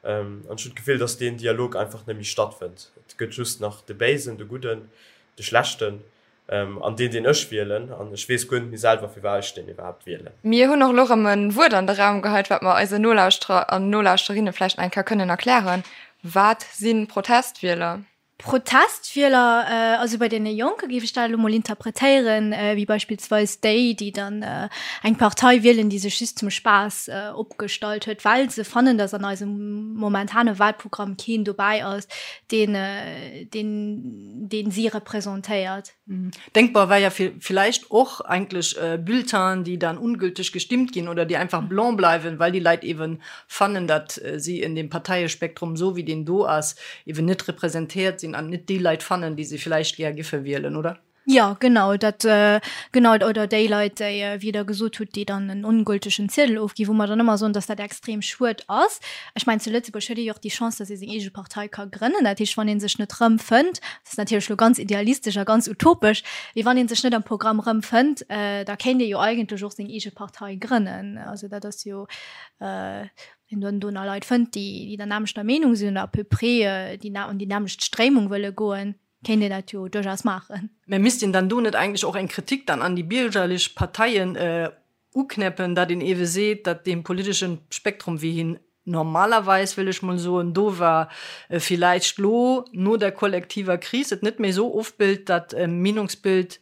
An ech hunn d'Gefill, dass deen Dialog einfach net méi stattfënnt. Et gëtt just nach de Béisen, de Gudden, de Schlechten an deen, deen ech wielen. An ech weess guer net méi selwer, firwat ech deen iwwerhaapt wielen. Mir hunn och elo erëm e Wuert an de Raum geheit, wat mer eisen Nolauschterer an Nolauschterinnen vläicht nach eng Kéier kënnen erklären. Wat si Protestwieler? Protestwieler, also bei deene Jonke géif ech dat elo mol interpretéieren, wéi beispillsweis déi, déi dann eng Partei wielen, déi sech just zum Spaass opgestallt huet, well se fannen, datt an eisem momentane Wahlprogramm keen dobäi ass, deen, deen, deen si representéiert. Denkbar wär ja villäicht och eigentlech Bulletinen, déi dann ungültig gestimmt ginn oder déi einfach blanc bleiwen, well déi Leit eeben fannen, datt si in dem Parteiespektrum, esou wéi deen do ass, eeben net representéiert sinn an net déi Leit fannen, déi se villäicht gär giffe wielen, oder? Jo, genau, dat, genau, oder déi Leit, déi, wéi Der gesot hutt, déi dann en ongültegen Ziedel ofginn, wou mer dann ëmmer soen, datt dat extrem schued ass. Ech mengen, zu Lëtzebuerg huet ee jo och déi Chance, datt ee seng eege Partei ka grënnen. Dat heescht, wann ee sech net rëmfënnt, Dat ass natierlech elo ganz idealistesch a ganz utopesch, mee wann ee sech net am Programm erëmfënnt, da kéint ee jo eigentlech och seng eege Partei grënnen. Also dat ass jo, wann een dann do nach Leit fënnt, déi der nämmlechter Meenung sinn oder à peu près déi an déi nämmlecht Stréimung wëlle goen, kéint een dat jo duerchaus maachen. Mä misst een dann do net eigentlech och eng Kritik dann an déi biergerlech Parteien uknäppen, datt een ewe seet, datt dee politeschen Spektrum, wéi hien normalerweis, wëll ech mol soen, do war, villäicht lo no der kollektiver Kris et net méi esou ofbilt, dat Meenungsbild,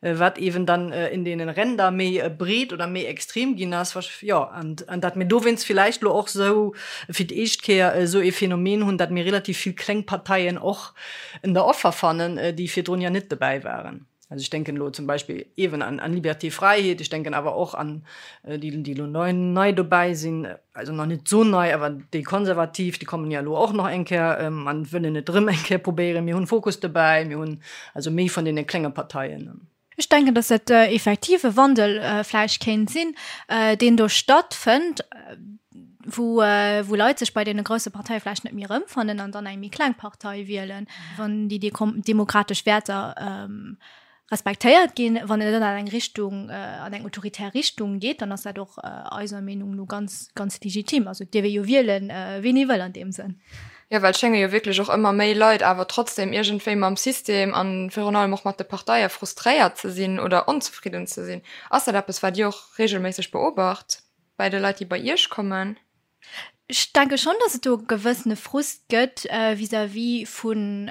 wat ewen dann in deenen Ränder méi breet oder méi extrem ginn ass, jo, an datt mir dowéinst villäicht lo och esou fir d'éischt Kéier esou ee Phänomen hunn, datt mir relativ vill kleng Parteien och en der Offer fannen, déi virdrun ja net dobäi waren. Also ech denken elo zum Beispill eeben an an Liberté, Fräiheet, ech denken awer och an déi, déi elo nei nei dobäi sinn, also nach net esou nei, awer déi Konservativ, déi kommen jo elo och nach eng Kéier an wëllen et erëm eng Kéier probéieren. Mir hunn Fokus dobäi, mir hunn also méi vun deene klenge Parteien. Ech denken, dass dat effektiv e Wandel vläicht kéint sinn, deen do stattfënnt. wou, wou Leit sech bei deene grousse Parteie vläicht net méi erëmfannen an dann eng méi kleng Partei wielen, wann déi demokratesch Wäerter respektéiert ginn. Wann et dann an eng Richtung, an eng autoritär Richtung geet, dann ass dat och eiser Meenung no ganz, ganz legitim. Also et dierf ee jo wielen, ween ee wëll an deem Sënn. Jo, well et schénge jo wierklech och ëmmer méi Leit awer trotzdem iergendwéi mam System a virun allem och mat de Parteie frustréiert ze sinn oder onzefridden ze sinn. Ass dat eppes, wat Dir och reegelméisseg beobacht bei de Leit, déi bei Iech kommen? Ech denke schonn, datt et do e gewëssene Frust gëtt vis-à-vis vun,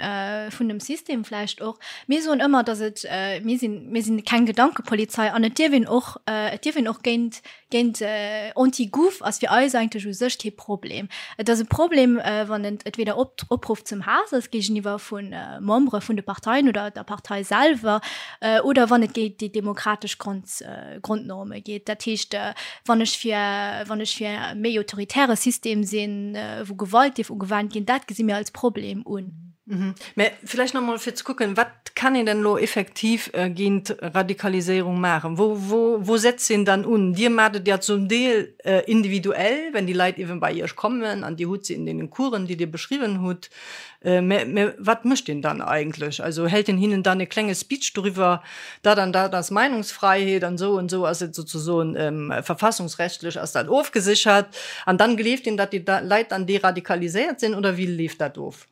vun dem System vläicht och. Mir soen ëmmer, datt et, mir sinn, mir sinn keng Gedankepolizei an et dierf een och, et dierf een och géint, géint Anti-Gouv ass fir eis eigentlech u sech kee Problem. Et ass e Problem, wann et entweder Opruff zum Haass ass géigeniwwer vu Membere vun de Parteien oder der Partei selwer oder wann et géint déi demokratesch Grond, Grondnorme geet. Dat heescht, wann ech fir, wann ech fir e méi autoritäre System sinn, wou Gewalt dierf ugewannt ginn, dat gesi mir als Problem un. Mä vläicht nach emol fir ze kucken, Wat kann een denn elo effektiv géint Radikaliséierung maachen? Wou, wou, wou setzt een dann un? Dir maacht et ja zum Deel individuell, wenn déi Leit eeben bei Iech kommen an Dir hutt se in deenen Coursen, déi Dir beschriwwen hutt. Mä, mä wat mécht een dann eigentlech? Also hält een hinnen dann e klenge Speech doriwwer, dat an dat ass Meinungsfreiheet an esou an esou ass et sozesoen verfassungsrechtlech ass dat ofgesichert an dann gleeft een, datt déi Leit dann deradikaliséiert sinn oder wéi leeft dat of?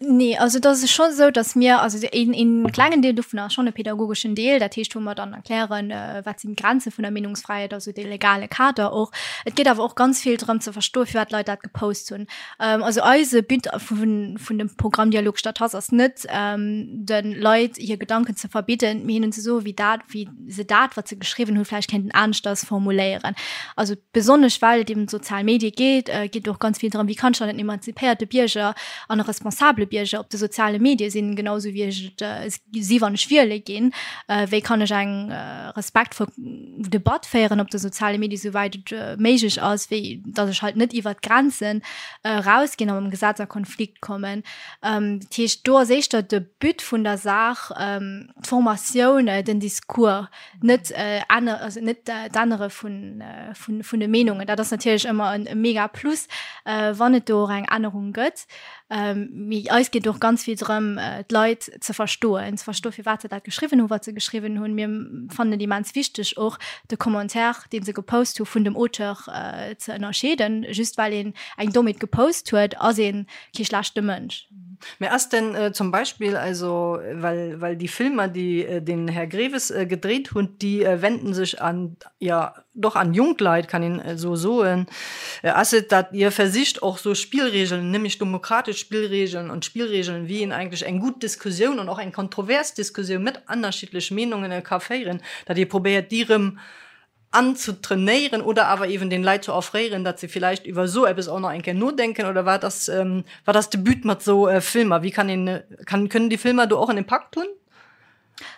Nee, also et ass scho esou, datt mir, also een, een klengen Deel dovun ass schonn e pädagogeschen Deel, dat heescht wou mer dann erklären, wat sinn d'Grenze vun der Meenungsfräiheet, also dee legale Kader och. Et geet awer och ganz vill drëm ze verstoen, firwat d'Leit dat gepost hunn. Also eise But vun dem Programm Dialog statt Hass ass net, de Leit hir Gedanken ze verbidden, mee hinnen ze soen, wéi dat, wéi se dat, wat se geschriwwen hunn, vläicht kéinten aneschters formuléieren. Also besonnesch well et ëm d'sozial Medie geet, geet et och ganz vill drëm, wéi kann ech dann en emanzipéierte Bierger an e responsabele Bierger op de soziale Medie sinn, genau esou wéi ech et si wann ech wiele ginn. Wéi kann ech eng respektvoll Debatt féieren op de soziale Medie souwäit et méiglech ass, wéi datt ech halt net iwwert d'Grenzen erausginn a mam Gesetz a Konflikt kommen. Dat heescht, do ass éischter de But vun der Saach d'Formatioun, den Discours, net ännere, also net d'Ännere vun, vun, vun de Meenungen. Dat ass natierlech ëmmer e mega Plus, wann et do och eng Ännerung gëtt. Mee eis geet och ganz vill drëm, d'Leit ze verstoen, ze verstoen, firwat se dat geschriwwen hunn, wat se geschriwwen hunn. Mir fannen et immens wichteg och de Commentaire, dee se gepost hu vun dem Auteur ze ënnerscheeden. Just well een eng Dommheet gepost huet, ass ee kee schlechte Mënsch. Mä ass denn zum Beispill, also well, well déi Filmer, déi den Här Greves gedréit hutt, déi wenden sech an, jo, doch an jonk Leit, kann een esou soen, ass et, datt Dir versicht och sou Spillregeln, nämlech demokratesch Spillregeln an Spillregeln, wéi een eigentlech eng gutt Diskussioun an och eng kontrovers Diskussioun mat ënnerschiddlech Meenungen ka féieren, datt Dir probéiert déi erëm anzutrainéieren oder awer eben den Leit ze offréieren, datt se villäicht iwwer esou eppes och nach eng Kéier nodenken oder wat ass, wat ass de But mat esou Filmer? Wéi kann een, kann, kënnen déi Filmer do och en Impakt hunn?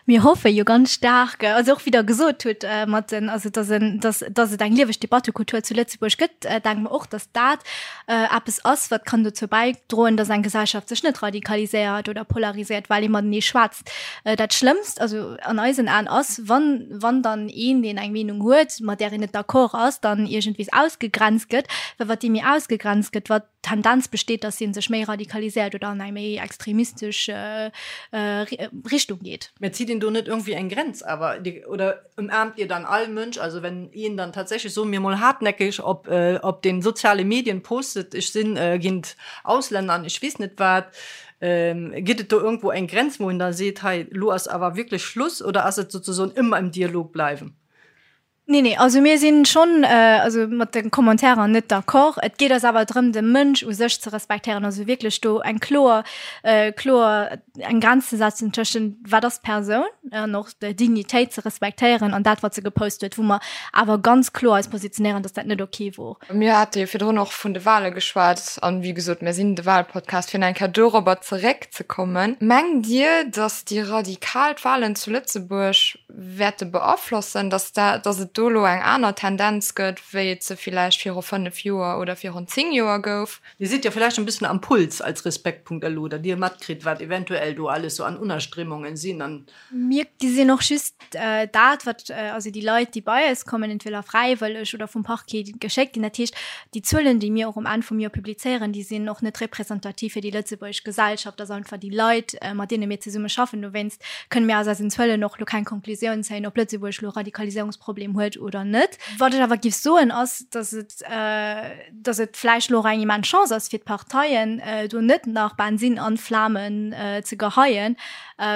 Mir hoffe jo ganz staark, also och wéi Der gesot hutt mat den, also dass en, dass, dass et eng lieweg Debattekultur zu Lëtzebuerg gëtt, denke mer och, dass dat eppes ass, wat kann dozou bäidroen, dass eng Gesellschaft sech net radikaliséiert oder polariséiert, well ee matenee schwätzt. Dat Schlëmmst, also an eisen Aen, ass, wann, wann dann een, deen eng Meenung huet, mat där een net d'accord ass, dann iergendwees ausgegrenzt gëtt, well wat dee méi ausgegrenzt gëtt, wat Tendenz besteet, dass hie sech méi radikaliséiert oder an eng méi extremistesch Richtung geet. Mä zitt een do net iergendwéi eng Grenz awer? Oder ëmaarmt Dir dann all Mënsch? Also wenn een dann tatsächlech, soe mir mol hartnäckeg, op op den soziale Medien postet, ech sinn géint Auslänner an ech weess net wat, gëtt et do iergendwou eng Grenz, wou een da seet, hei elo ass awer wierklech Schluss? Oder ass et sozesoen ëmmer im Dialog bleiwen? Nee, nee, also mir sinn schonn also mat de Commentairen net d'accord. Et geet eis awer drëm, de Mënsch u sech ze respektéieren, also wierklech do eng kloer, kloer eng Grenz ze setzen tëschent wat ass d'Persoun an och d'Dignitéit ze respektéieren an dat wat se gepost huet, wou mer awer ganz kloer eis positionéieren, dass dat net ok wor. Mir hate jo virdrun och vun de Wale geschwat an, wéi gesot, mir sinn de Walpodcast, fir nach eng Kéier dorobber zeréckzekommen. Mengt Dir, dass déi radikal d'Walen zu Lëtzebuerg wäerte beaflossen, dass dat, dass et. do elo eng aner Tendenz gëtt, wéi et se villäicht viru 5 Joer oder virun 10 Joer gouf. Dir sidd jo villäicht en bëssen am Puls als Respekt.lu, datt Dir matkritt, wat eventuell do alles sou an Unnerstrémungen sinn an. Mir gesinn och just dat, wat, also déi Leit, déi bei eis kommen, entweder fräiwëlleg oder vum Parquet geschéckt ginn. Dat heescht, déi Zuelen, déi mir och um Enn vum Joer publizéieren, déi sinn och net representativ fir déi lëtzebuergesch Gesellschaft. Dat ass einfach déi Leit, mat deene mir zesumme schaffen. Dowéinst kënne mir aus eisen Zuelen och elo keng Konklusioun zéien, ob Lëtzebuerg elo e Radikaliséierungsproblem huet oder net. Wat ech awer géif soen, ass, datt et, datt et vläicht elo och eng immens Chance ass fir d'Parteien, do net nach Bensinn an d'Flamen ze geheien,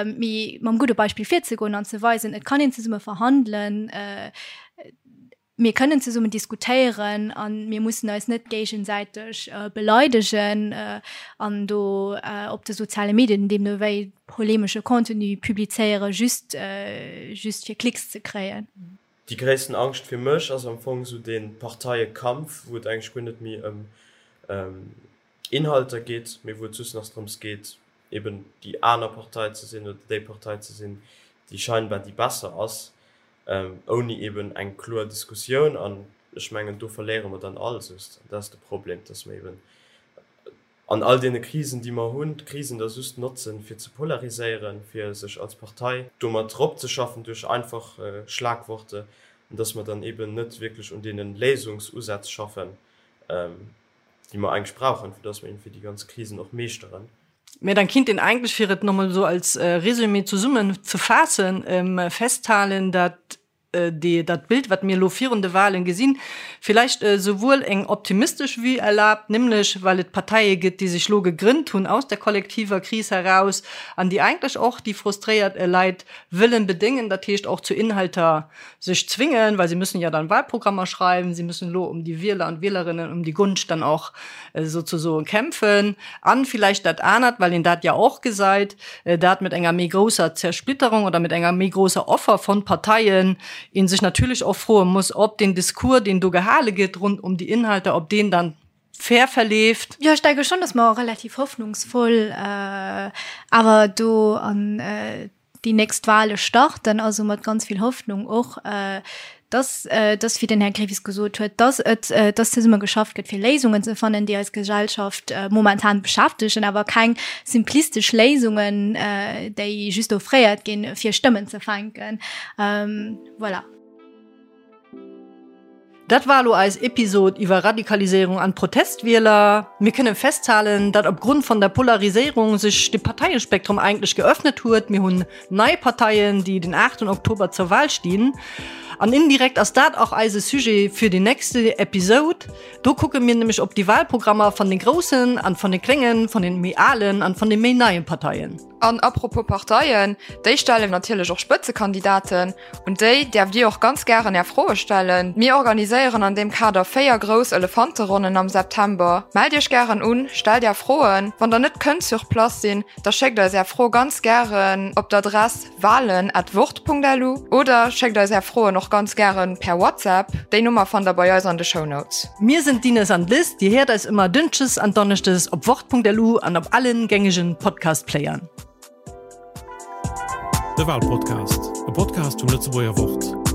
mee mam gudde Beispill virzegoen an ze weisen, et kann een zesumme verhandelen, mir kënnen zesummen diskutéieren a mir mussen eis net géigesäiteg beleidegen an do op de soziale Medien deemno wéi polemesche Contenu publizéieren, just just fir Klicks ze kréien. Déi gréissten Angscht fir mech ass am Fong esou dee Parteiekampf, wou et eigentlech guer net méi ëm Inhalter geet, mee wou et just nach drëms geet, eben déi aner Partei ze sinn oder déi Partei ze sinn, déi scheinbar déi besser ass, ouni eben eng kloer Diskussioun. An ech mengen, do verléiere mer dann all just. An dat ass de Problem, dass mer eben an all deene Krisen, déi mer hunn, d'Krisen da just notzen, fir ze polariséieren, fir sech als Partei domat eropzeschaffen duerch einfach Schlagworte, an dass mer dann eben net wierklech un deene Léisungsusätz schaffen, déi mer eigentlech brauchen, fir dass mer iergendwéi déi ganz Krisen och meeschteren. Mä dann kinnt een eigentlech, fir et nochmol esou als Résumé zesummen ze faassen, festhalen, dat déi, dat Bild, wat mir elo virun de Wahlen gesinn, villäicht esouwuel eng optimistesch Vue erlaabt, nämlech well et Parteie gëtt, déi sech elo gegrënnt hunn aus der kollektiver Kris heraus an déi eigentlech och déi frustréiert Leit wëllen bedéngen, dat heescht och zu Inhalter sech zwingen, well sie müssen ja dann Wahlprogrammer schreiben, sie müssen elo um die Wieler an Wielerinnen, um die Gunst dann och sozusoen kämpfen. An vielleicht dat anert, well een dat ja och gesait, dat mit enger méi grousser Zersplitterung oder mit enger méi grousser Offer von Parteien een sech natürlich och froe muss, ob den Discours, deen do gehale gëtt rund um die Inhalter, ob deen dann fair verleeft. Jo, ech denke schon, dass mer relativ hoffnungsvoll awer do an déi nächst Wahle starten, also mat ganz vill Hoffnung och, dass, dass, wéi den Här Grevis gesot huet, dass et, dass zesumme geschafft gëtt, fir Léisungen ze fannen, déi eis Gesellschaft momentan beschäftegen, awer keng simplistesch Léisungen, déi just offréiert ginn, fir Stëmmen ze fänken. Voilà. Dat war elo eis Episod iwwer Radikaliséierung an Protestwieler. Mir kënnen festhalen, datt op Grund von der Polariséierung sech de Parteiespektrum eigentlech geöffnet huet. Mir hunn nei Parteien, déi den 8 Oktober zur Wahl stinn. An indirekt ass dat och eise Sujet fir déi nächste Episod. Do kucke mir nämlech op déi Wahlprogrammer van de groussen an van de kléngen, van den méi alen an van de méi neien Parteien. An apropos Parteien, déi stellen natierlech och Spëtzekandidaten. Un déi däerft Dir och ganz gären Är Froe stellen. Mir organiséieren an deem Kader 4 grouss Elefanteronnen am September. Mellt Iech gären un, stellt Är Froen. Wann der net kënnt sur place sinn, da schéckt eis Är Fro ganz gären op d'Adress wahlen at wort.lu oder schéckt eis Är Froen och ganz gären per WhatsApp. Déi Nummer fannt der bei eis an de Shownotes. Mir sinn d'Ines an d'Liz. Dir héiert eis ëmmer Dënschdes an Donneschdes op wort.lu an op allen gängegen Podcast-Playern. De Walpodcast, e Podcast vum Lëtzebuerger Wort.